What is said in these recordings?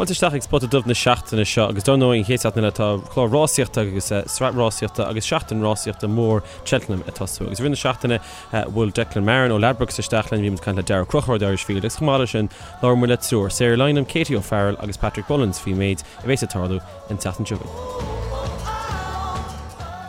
Fáilte isteach ag Spota Dubh na seachtaine seo agus dar ndóigh an chéad seachtain eile tá clár rásaíochta agus sraith rásaíochta agus seachtain rásaíochta mór Cheltenham ag tosú. Agus i rith na seachtaine bhuail Declan Marron ó Ladbrokes isteach linn, bhí muid ag caint le Daragh Ó Conchúir The Irish Field agus chomh maith leis sin labhair muid le triúr, Sarah Lynam, Katie O'Farrell agus Patrick Mullins faoin méid a bheas ag tarlú an tseachtain seo chugainn.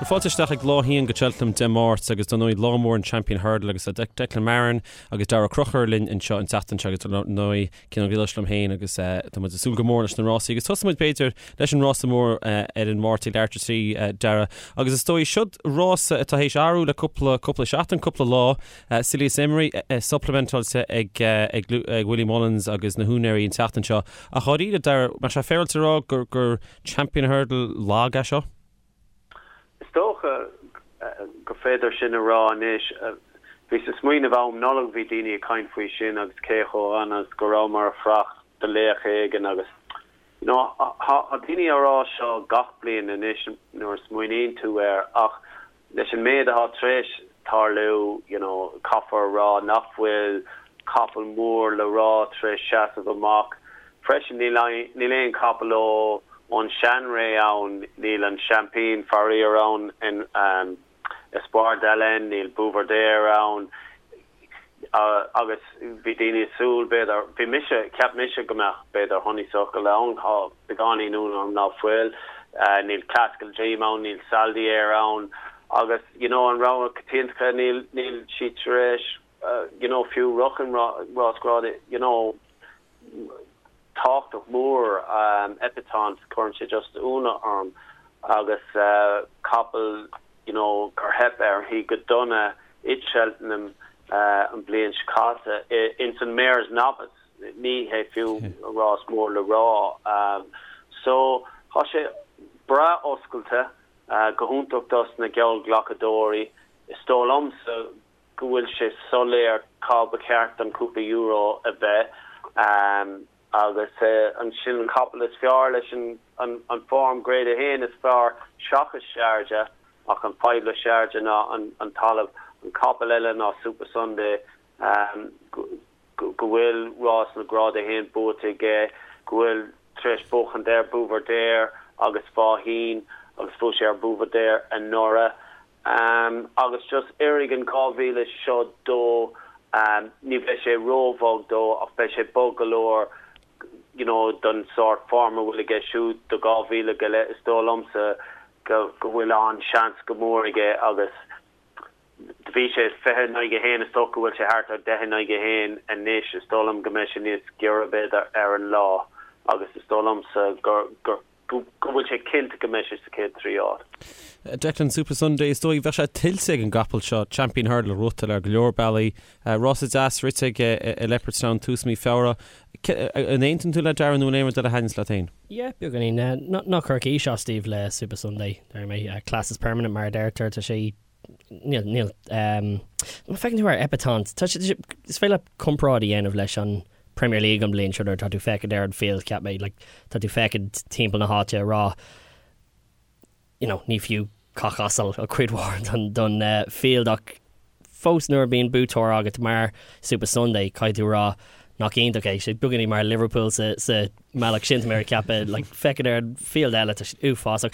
Fáilte isteach ag Lá 1 go Cheltenham Dé Máirt agus dar ndóigh lá mór an Champion Hurdle agus Declan Marron agus Daragh Ó Conchúir linn anseo an tseachtain seo agus dar ndóigh Cian Ó Griallais liom féin agus tá muid ag súil go mór leis na rásaí agus tosóidh muid b'fhéidir leis an rása mór ar an Máirt ag leathuair tar éis a 3, Daragh. Agus is dóigh siod rása atá théis athrú le cúpla cúpla seachtain, cúpla lá. Silius Emery supplementáilte ag ag Willie Mullins agus na húinéirí an tseachtain seo. Ach dháiríre, Daragh, mbeadh sé féaráilte a rá gur gur Champion Hurdle lag é seo? Is dócha gur féidir sin a rá anois. Bhíos ag smaoineamh am Nollag bhí daoine ag caint faoi sin agus cé chomh dona is go rabhamar ag fanacht do laoch éigin agus you know tá daoine á rá seo gach bliain anois nuair a smaoiníonn tú air ach Leis an méid atá tar éis tarlú, you know, caithfear a rá nach bhfuil capall mór le rá tar éis seasamh amach. Freisin, níl níl aon chapall ó ón seanré ann, níl an seaimpín faraor ann in Espoir d'Allen, níl Buveur d'Air ann. Agus bhí daoine ag súil, b'fhéidir, bhí mise, cheap mise go mbeadh, b'fhéidir, Honeysuckle ann, tá beagáinín ionadh orm ná fuil. Níl Klassical Dream ann, níl Saldier ann agus, you know, an rogha coitianta, níl, níl siad tar éis, you know, fiú rachan rás grád, you know, tábhachtach mór, Epatante, cuireann sé just ionadh orm agus capall you know gur theip uirthi go dona i Cheltenham an bhliain seo caite ins an Mares' Novice, ní hé fiú rás mór le rá. So tá sé breá oscailte, go hiontach dos na geallghlacadóirí. Is dóigh liomsa go bhfuil sé soiléir cá ba cheart don cúpla euro a bheith agus ansin an capall is fearr leis an form Grade 1 is fearr seachas Sharjah ach an fadhb le Sharjah ná an talamh. An capall eile ná Supasundae go bhfuil rás na Grád 1 buaite aige, go bhfuil tar éis buachaint ar Buveur d'Air agus Faugheen agus bhuaigh sé ar Buveur d'Air anuraidh. Agus just oirfidh an 2,000 seo dó, ní bheidh sé róbhog dó ach beidh sé bog go leor you know don sórt form a bhfuil aige siúd do 2,000 go leith. Is dóigh liomsa go go bhfuil an-seans go mór aige agus do bhí sé 20 in aghaidh 1, is dócha go bhfuil sé thart ar 10 in aghaidh 1 anois, is dóigh liom go mbeidh sé níos giorra b'fhéidir ar an lá agus is dóigh liomsa gur gur go bhfuil sé cinnte go mbeidh sé sa chéad 3 áit. Declan, Supasundae, is dóigh, bheadh sé tuillte ag an gcapall seo, Champion Hurdle a ghnóthachtáil ar go leor bealaí. Rása deas rite aige i Leopardstown tús mí Feabhra. An aontaíonn tú le Darragh nó an aon rud eile a thaitníonns leat féin? Yeah, beagáinín. Ná cuir aois as daoibh le Supasundae, deir mé. Class is permanent mar a deirtear, tá sé Níl, níl. Má feiceann tú ar Epatante, tá sé, is féidir leat comparáid a dhéanamh leis an Premier League an bhliain seo nuair atá tú féachaint ar an field, cheap mé, like, tá tú féachaint timpeall na háite ag rá, you know, ní fiú cac asail a cuid mhór don, don field ach fós nuair a bíonn buaiteoir agat mar Supasundae, caithfidh tú rá nach iontach é, sé beagáinín mar Liverpool sa, sa mbealach sin, tá mé ag ceapadh, like, féachaint ar an field eile, tá sé uafásach.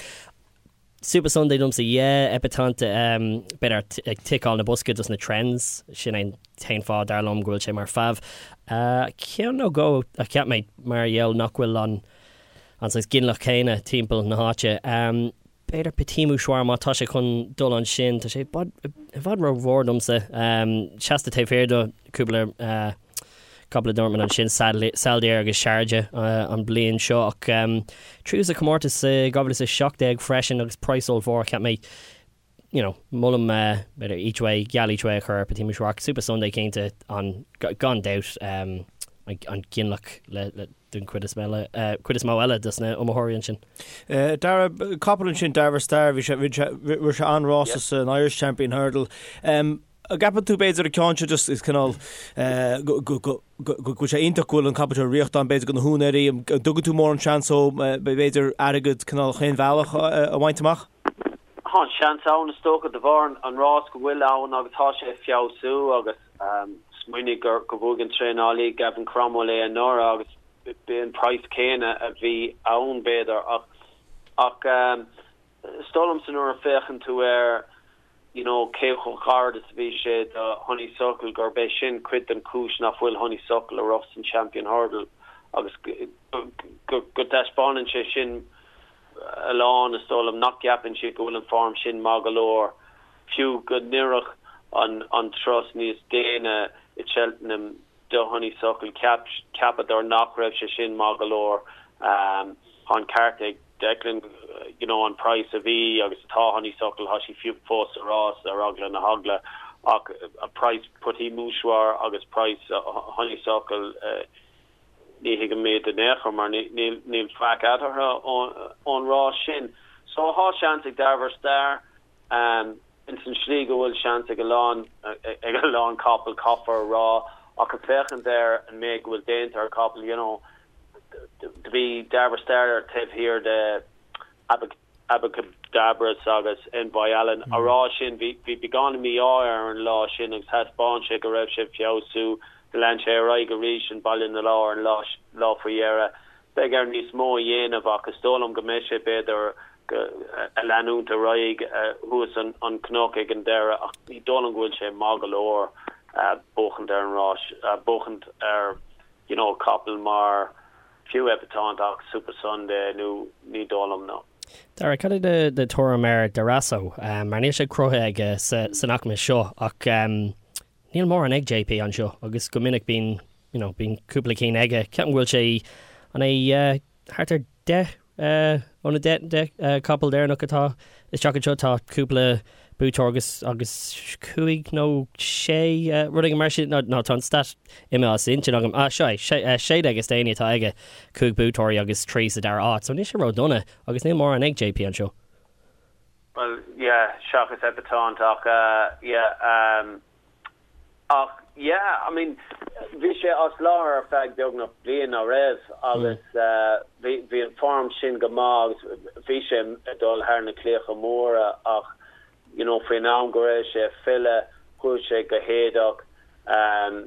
Supasundae domsa, yeah, Epatante, b'fhéidir ag ticeáil na boscaí dos na trends, sin é an t-aon fáth dar liom go bhfuil sé mar fav. Ceann nó dhó a cheap mé mar gheall nach bhfuil an an saghas ginealach céanna timpeall na háite. B'fhéidir Petit Mouchoir má tá sé chun dul ansin, tá sé i bhfad rómhór domsa. Seasta taobh thiar do cúpla Capall a dúirt mé ansin, Saldier agus Sharjah an bliain seo ach tríú sa chomórtas i 2017 freisin agus praghas ollmhór cheap mé you know molaim b'fhéidir each way, geall each way a chur ar Petit Mouchoir ach Supasundae cinnte an gan dabht an ginealach le le den chuid is eile cuid is mó eile dos na iomaitheoirí ansin. Darragh, capall ansin Darver Star, bhí sé bhí sé rith sé an-rása san Irish Champion Hurdle. An gceapann tú b'fhéidir an ceann seo just is cineál go bhfuil sé iontach go bhfuil an capall seo ag rith ann b'fhéidir do na húinéirí, an dtugann tú mórán seans dó b'fhéidir airgead cineál chaon bhealach a bhaint amach? Tá an seans ann is dócha de bharr an rás go bhfuil ann agus tá sé ag feabhsú agus smaoinigh gur bhuaigh an traenálaí Gavin Cromwell é anuraidh agus. B'é an praghas céanna a bhí ann b'fhéidir ach ach is dóigh liomsa nuair a féachann tú air you know cé chomh gairid is a bhí sé do Honeysuckle gurb é sin cuid den chúis nach bhfuil Honeysuckle ag rith san Champion Hurdle agus go go dtaispeánann sé sin a lán is dóigh liom nach gceapann siad go bhfuil an form sin maith go leor fiú go n-oirfeadh an an turas níos déine i Cheltenham do Honeysuckle. Cheapadar nach raibh sé sin maith go leor. Tá an ceart ag Declan, you know, an praghas a bhí agus atá Honeysuckle, tá sí fiú fós sa rás ar eagla na heagla ach praghas Petit Mouchoir agus praghas Honeysuckle, ní thuigim iad in aon chor mar níl faic eatarthu ón rás sin. So tá seans ag Darver Star. Ins an slí go bhfuil seans ag a lán, ag a lán capall, caithfear a rá, ach ag féachaint ar an méid go bhfuil déanta ar capall, you know, do bhí Darver Star taobh thiar de Abacadabras agus Envoi Allen. Á rá sin, bhí, bhí beagán mí-ádh air an lá sin agus thaispeáin sé go raibh sé ag feabhsú. Do lean sé ar aghaidh arís in Ballinalaw an lá, lá faoi dheireadh. Beidh air níos mó a dhéanamh ach is dóigh liom go mbeidh sé, b'fhéidir, ag leanúint ar aghaidh thuas an cnoc ag an deireadh ach ní dóigh liom go bhfuil sé maith go leor buachaint ar an rás, buachaint ar you know capall mar fiú Epatante ach Supasundae nó ní dóigh liom no. Dara, cad é do thuairim ar Darasso? Mar níl sé cruthaithe aige san aicme seo ach Níl mórán ag JP anseo agus go minic bíonn, you know, bíonn cúpla cinn aige. Ceapaim go bhfuil sé, an é thart ar 10 ó na 10, 10 capall deireanach atá isteach anseo, tá cúpla buaiteoir agus, agus cúig nó sé, rud éigin mar sin, nó, nó tá an stat imithe as intinn agam. Ah, seo é, sé, 16 is déanaí atá aige, cúig buaiteoirí agus trí sa dara áit, so níl sé ródhona agus níl mórán ag JP anseo. Bhuel, yeah, seachas Epatante ach yeah, um, ach yeah, I mean, bhí sé as láthair ar feadh beagnach bliain, ná raibh, agus bhí, bhí an form sin go maith agus bhí sé ag dul thar na claíocha móra ach, you know, faoin am go raibh sé ag filleadh, chuaigh sé go héadach, um,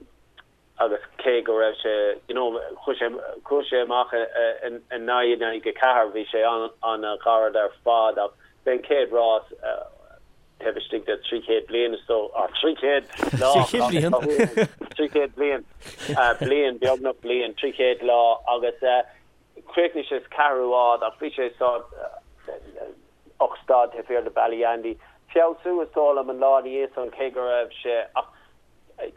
agus cé go raibh sé, you know, chuaigh sé, chuaigh sé amach in 9 in aghaidh 4, bhí sé an-ghairid ar fad ach b'é an chéad rás taobh istigh de 300 bliain is dóigh, ah, 300 lá, 300 bliain, 300 bliain, bliain, beagnach bliain, 300 lá agus chríochnaigh sé sa ceathrú háit ach bhí sé stad, 8 stad taobh thiar de Ballyandy. Feabhsú is dóigh liom an lá ina dhiaidh san cé go raibh sé ach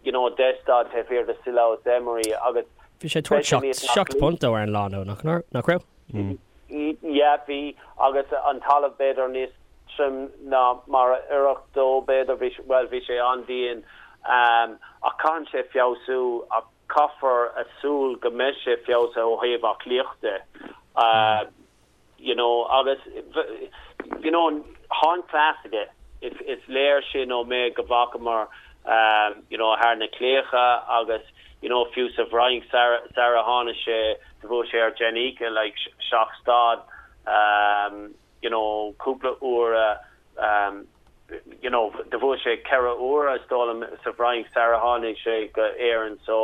you know 10 stad taobh thiar de Cilaos Emery agus Bhí sé ag tabhairt 7 bpunt dó ar an lá nó nach nach raibh? Yeah bhí agus an talamh b'fhéidir níos troime ná mar a oirfeadh dó b'fhéidir bhí bhuel bhí sé an-dian ach caitheann sé feabhsú ach caithfear a súil go mbeidh sé feabhsaithe ó thaobh aclaíochta you know agus you know tá an cleas aige is is léir sin ón méid go bhfacamar you know thar na claíocha agus you know fiú sa bhFrainc sar sar a tháinig sé do bhuaigh sé ar Jenica like seacht stad you know cúpla uair you know do bhuaigh sé ceithre huaire is dóigh liom sa bhFrainc sar a tháinig sé go Éirinn so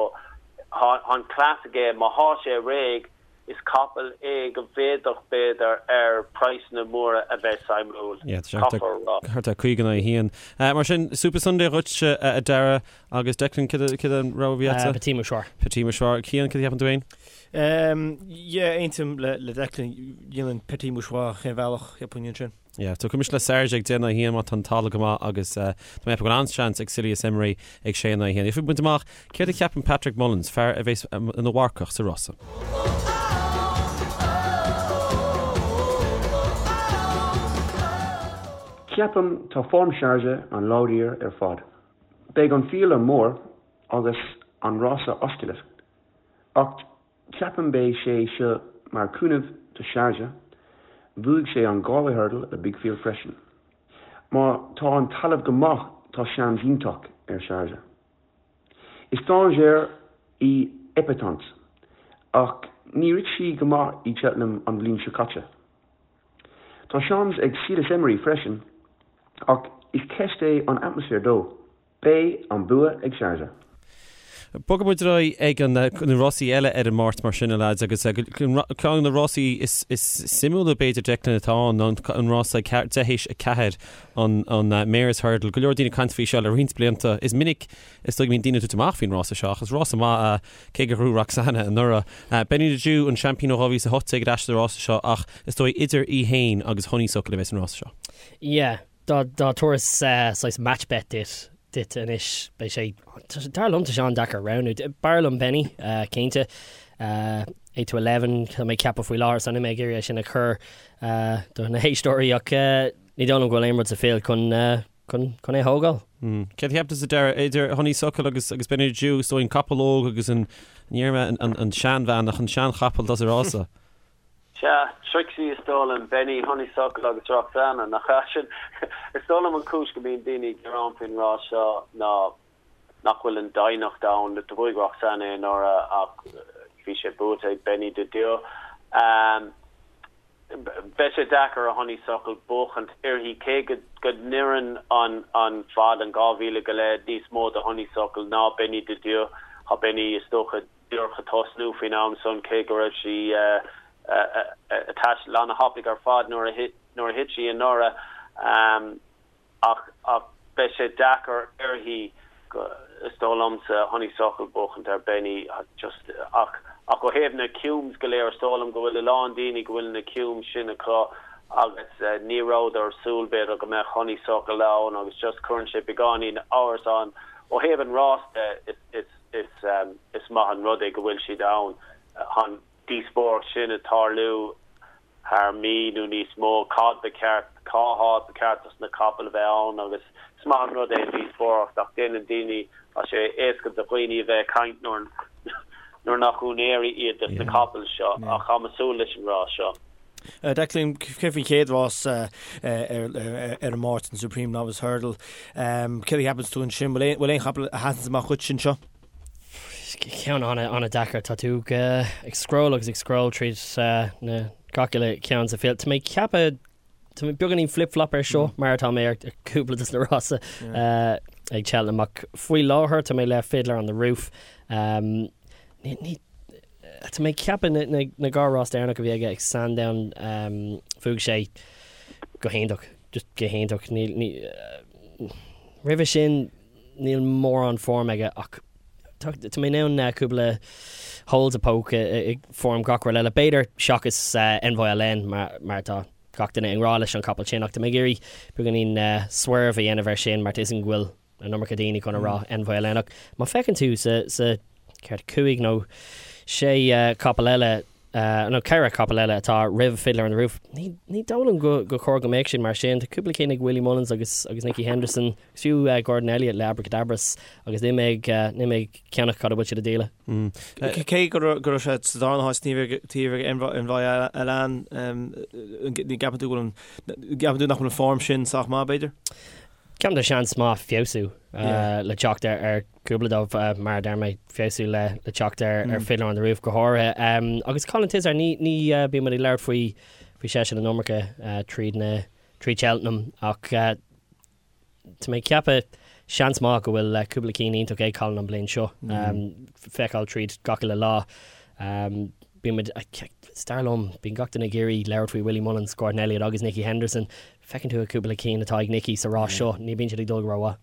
tá an cleas aige má thá sé réidh Is capall é go bhféadfadh, b'fhéidir, ar praghsanna móra a bheith suimiúil, caithfear a rá. Thart ar 50 in aghaidh a haon. Mar sin, Supasundae dhuit, a Dara, agus Declan, cad é an rogha a bhí agatsa? Petit Mouchoir. Petit Mouchoir. Cian, cad a cheapann tú féin? Yeah, aontaím le Declan, dhéanfainn Petit Mouchoir chaon bhealach, cheapfainn ansin. Yeah, tiocfaidh mise le Sharjah ag 10 in aghaidh 1 má tá an talamh go maith agus tá mé ag ceapadh go bhfuil an-seans ag Silius Emery ag 6 in aghaidh 1. Gheobhaidh muid amach céard a cheapann Patrick Mullins, fear a bheas ina mharcach sa rása. Ceapaim tá form Sharjah an láidir ar fad. Beidh an field an mór agus an rása oscailte ach Ceapaim beidh sé seo mar cúnamh do Sharjah, bhuaigh sé an Galway Hurdle le big field freisin. Má tá an talamh go maith tá seans iontach ar Sharjah. Is dainséar í Epatante ach ní rith sí go maith i Cheltenham an bhliain seo caite. Tá seans ag Cilaos Emery freisin ach is ceist é an atmaisféar dó. Beidh an bua ag Sharjah. Bogfaidh muid ar aghaidh ag an na rásaí eile ar an Máirt mar sin, a leaids, agus ceann de na rásaí is suimiúla b'fhéidir, Declan, atá ann ná an rása ag deich théis 4, an Mares Hurdle. Go leor daoine ag caint faoi seo le roinnt blianta. Is minic is dóigh go mbíonn daoine ag tabhairt amach faoin rása seo ach is rása maith é, cé gur ghnóthaigh Roxana anuraidh. Benny the Jew, an seaimpín ó 2018 ar ais sa rása seo ach is dóigh idir í féin agus Honeysuckle a bheas an rása seo. Yeah. Dá dtabharfas saghas match bet duit duit anois, beidh sé, dar liom, tá sé an-deacair roghnú. B'fhearr liom Benny, cinnte. 8 to 11, tá mé ag ceapadh faoi láthair, so níl mé ag iarraidh é sin a chur do na héisteoirí ach ní dóigh liom go bhfuil aon rud sa field chun chun chun é a thógáil. Céard a cheap tusa, Dara, idir Honeysuckle agus agus Benny the Jew, is dóigh an capall óg agus an, ní déarfaidh mé an an seanbhean ach an seanchapall atá sa rása? Sea, Trixie is dóigh liom, Benny, Honeysuckle agus Roxana, nach ea? Sin, is dóigh liom an chúis go mbíonn daoine ag gearán faoin rás seo ná nach bhfuil an doimhneacht ann. Do bhuaigh Roxana é anuraidh ach bhí sé buaite ag Benny the Jew. Beidh sé deacair ar Honeysuckle buachaint uirthi cé go go n-oireann an an fad, an 2,000 go leith, níos mó do Honeysuckle ná Benny the Jew. Tá Benny, is dócha, díreach ag tosnú faoin am san, cé go raibh sí ag taisteal ana-thapaidh ar fad nuair a nuair a thit sí anuraidh. Ach ach beidh sé deacair uirthi, is dóigh liomsa, Honeysuckle buachaint ar Benny just ach ach ó thaobh na cumes go léir, is dóigh liom go bhfuil a lán daoine go bhfuil na cumes sin acu agus ní rabhadar ag súil b'fhéidir go mbeadh Honeysuckle ann agus just cuireann sé beagáinín amhras ann. Ó thaobh an rás de, is is Is maith an rud é go bhfuil siad ann. Tá an díospóireacht sin ag tarlú thar mí nó níos mó, cad ba cheart, cá háit ba cheart dos na capaill a bheith ann agus is maith an rud é an díospóireacht ach déanann daoine, tá sé éasca do dhaoine a bheith ag caint nuair nuair nach úinéirí iad dos na capaill seo ach táim ag súil leis an rás seo. Declan, céard faoin chéad rás ar an Máirt, an Supreme Novice Hurdle? Céard a cheapanns tú ansin? Bhfuil aon chapall a sheasanns amach dhuit anseo? Ceann an-deacair. Tá tú ag scroll agus ag scroll tríd na gach uile cheann sa field. Tá mé ag ceapadh, tá mé beagáinín flip-flop ar seo mar atá mé ar cúpla de na rásaí ag Cheltenham ach faoi láthair tá mé le Fiddler on the Roof. Ní Tá mé ag ceapadh na dhá rás deireanach a bhí aige ag Sandown bhuaigh sé go hiontach, just go hiontach. Níl, ní, roimhe sin níl mórán form aige ach tá, tá mé in ann cúpla holes a poke i form gach rud eile. B'fhéidir seachas Envoi Allen mar, mar tá gach duine i ngrá leis an capall sin ach tá mé ag iarraidh beagáinín swerve a dhéanamh air sin mar tá 'fhios agam go bhfuil an iomarca daoine chun a rá Envoi Allen ach má feiceann tú sa, sa, céard, cúig nó sé capall eile, nó ceithre capall eile atá roimh Fiddler on the Roof, ní, ní dóigh liom go, gur chóir go mbeadh sin mar sin. Tá cúpla cinn ag Willie Mullins agus, agus Nicky Henderson, agus fiú Gordon Elliott le Abacadabras agus níl mé ag, níl mé ag ceannach cad a bhfuil siad a dhíol. Cé go raibh, go raibh sé sa darna háit taobh, taobh ag Envoi, Envoi Allen, ní gceapann tú go bhfuil an, gceapann tú nach bhfuil an form sin sách maith b'fhéidir? Ceapaim tá seans maith feabhsú le teacht ar cúpla dóibh, mar a deir mé, feabhsú le teacht ar Fiddler on the Roof go háirithe. Agus Colin Tizzard, ní bíonn muid ag labhairt faoi faoi seisean an iomarca tríd na tríd Cheltenham ach tá mé ag ceapadh seans maith go bhfuil cúpla cinn iontach ag Colin an bliain seo. Feiceáil tríd gach uile lá. Bíonn muid, is dar liom, bíonn gach duine ag iarraidh labhairt faoi Willie Mullins, Gordon Elliott agus Nicky Henderson. Feiceann tú cúpla cinn atá ag Nicky sa rás seo, ní bíonn siad ag dul go rómhaith.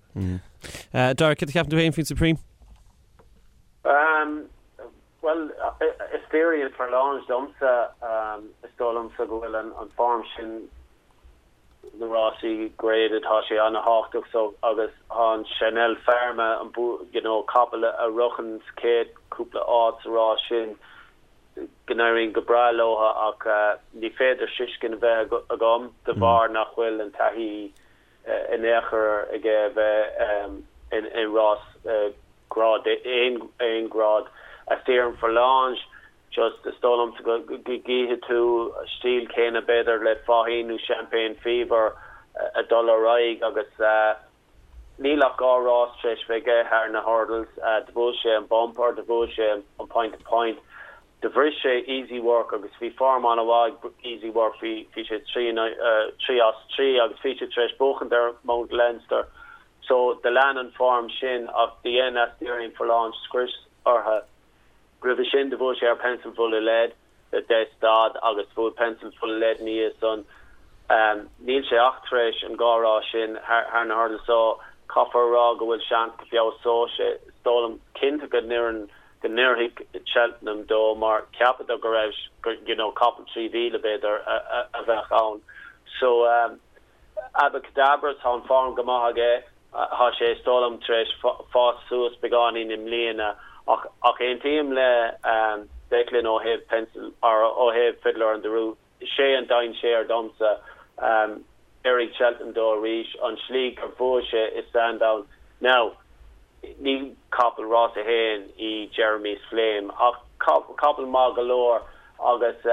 Dara, céard a cheapann tú féin faoin Supreme? Bhuel, Asterion Forlonge domsa, is dóigh liomsa go bhfuil an form sin na rásaí graded, tá sé ana-thábhachtach so agus tá an Chanelle Pharma, an you know, capall a shroicheann sa chéad cúpla áit sa rás sin, go n-éiríonn go breá leo ach ní féidir tuiscint a bheith agam de bharr nach bhfuil an taithí in aon chor aige a bheith i rás grád aon ghrád. Asterion Forlonge, just is dóigh liomsa go gcífidh tú stíl céanna b'fhéidir le Faugheen nó Champagne Fever ag dul ar aghaidh agus Níl ach 2 rás tar éis bheith aige thar na hurdles. Do bhuaigh sé an bumper, do bhuaigh sé an point to point. Do bhris sé Easy Work agus bhí form an-mhaith ag Easy Work, bhí, bhí sé 3, 3 as 3 agus bhí sé tar éis buachaint ar Mount Leinster. So do lean an form sin ach do dhein Asterion Forlonge scrios orthu. Roimhe sin do bhuaigh sé ar Pencil Full of Lead le 10 stad agus bhuaigh Pencil Full of Lead ina dhiaidh san. Níl sé ach tar éis an dhá rás sin thar na hurdles so caithfear a rá go bhfuil seans go bhfeabhsóidh sé. Is dóigh liom cinnte go n-oireann go n-oirfidh Cheltenham dó mar cheapadar go raibh you know capall 3,000 b'fhéidir a bheadh ann. So Abacadabra tá an form go maith aige, tá sé is dóigh liom tar éis fás suas beagáinín i mbliana ach ach aontaím le Declan ó thaobh Pencil or ó thaobh Fiddler on the Roof, sé an dainséar domsa. Oirfidh Cheltenham dó arís, an slí gur bhuaigh sé i Sandown. Now, ní capall rás a haon í Jeremy's Flame ach capall maith go leor agus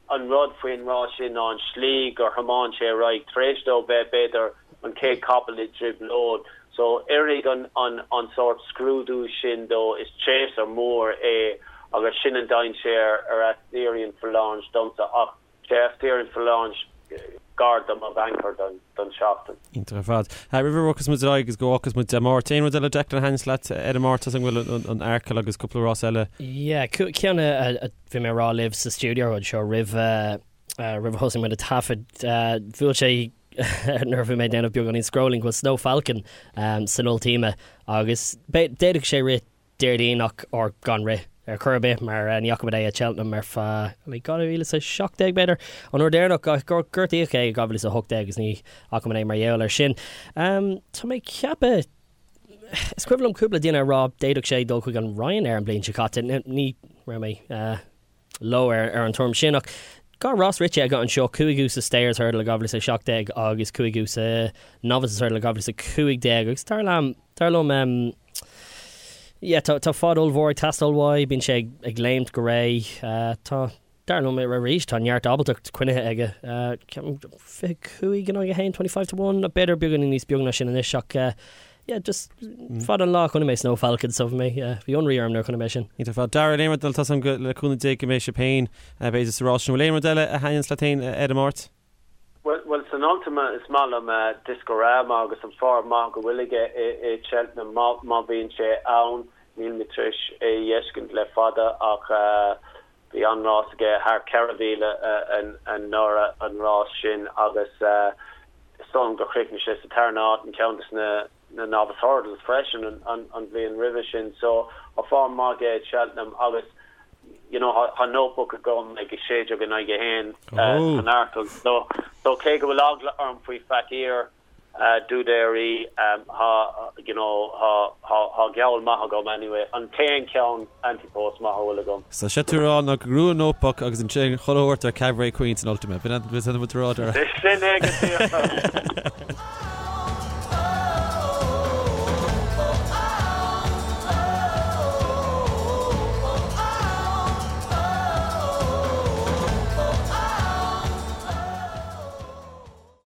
an rud faoin rás sin ná an slí gur thiomáin sé ar aghaidh tar éis dó bheith b'fhéidir an chéad capall i dtrioblóid. So oirfidh an an an sórt scrúdú sin dó, is chaser mór é agus sin an dainséar ar Asterion Forlonge domsa ach sé Asterion Forlonge gar do mo bhanker don don seachtain. Iontach ar fad. Roimh a bhogfas muid ar aghaidh agus go bhfágfas muid Dé Máirt, aon rud eile Declan a thaitníos leat ar an Máirt as an bhfuil an Arkle agus cúpla rás eile? Yeah, ceann a bhí mé a rá libh sa stiúideo anseo roimh roimh a thosaigh muid ag taifead, bhuail sé nuair a bhí mé ag déanamh beagáinín scrolling go bhfuil Snow Falcon san Ultima agus d'fhéadfadh sé rith Déardaoin ach or gan rith ar chor ar bith mar ní fhaca muid é at Cheltenham ar feadh 2017 b'fhéidir an uair deireanach gur gortaíodh é i 2018 agus ní fhaca muid é mar gheall air sin. Tá mé ag ceapadh is cuimhin liom cúpla duine a rá d'fhéadfadh sé dul chuig an Ryanair an bhliain seo caite. Ní raibh mé leo ar an tuairim sin ach dhá rás rite aige anseo, cúigiú sa Stayers Hurdle i 2017 agus cúigiú sa Novices Hurdle i 2015 agus dar liom, dar liom, yeah, tá, tá fad ollmhór ag teastáil uaidh, bíonn sé ag, ag léimt go réidh, tá, dar liom arís, tá neart ábaltacht coinnithe aige, ceapaim 25 in aghaidh 1, 25 to 1, b'fhéidir beagáinín níos beag ná sin anois ach yeah, just fada an lá a chonaic mé Snow Falcon so bhí mé, bhí ionradh orm nuair a chonaic mé sin. Iontach ar fad. Darragh, aon rud eile, tá a fhios agam le cúnamh Dé go mbeidh sibh féin, b'fhéidir sa rás sin. Bhfuil aon rud eile a thaitníonns leat féin ar an Máirt? Bhuel, san Ultima is maith liom Discorama agus an form maith go bhfuil aige i Cheltenham má bhíonn sé ann. Níl mé tar éis é a fheiscint le fada ach bhí an-rás aige thar 4,000 anuraidh an rás sin agus is dóigh liom gur chríochnaigh sé sa tarna háit in ceann de na Novice Hurdles freisin an bhliain roimhe sin. So tá form maith aige i Cheltenham agus you know tá Notebook agam ag 16 in aghaidh 1 san Arkle so so cé go bhfuil eagla orm faoi Fakir D'Oudairies tá you know tá tá tá geall maith agam anyway an t-aon cheann ante-post maith a bhfuil agam. So sé tú rá ná go ngnóthóidh Notebook agus ansin chuile shórt ar Cabaret Queen san Ultima. B'in an rud a rá Dara. Sin é go díreach.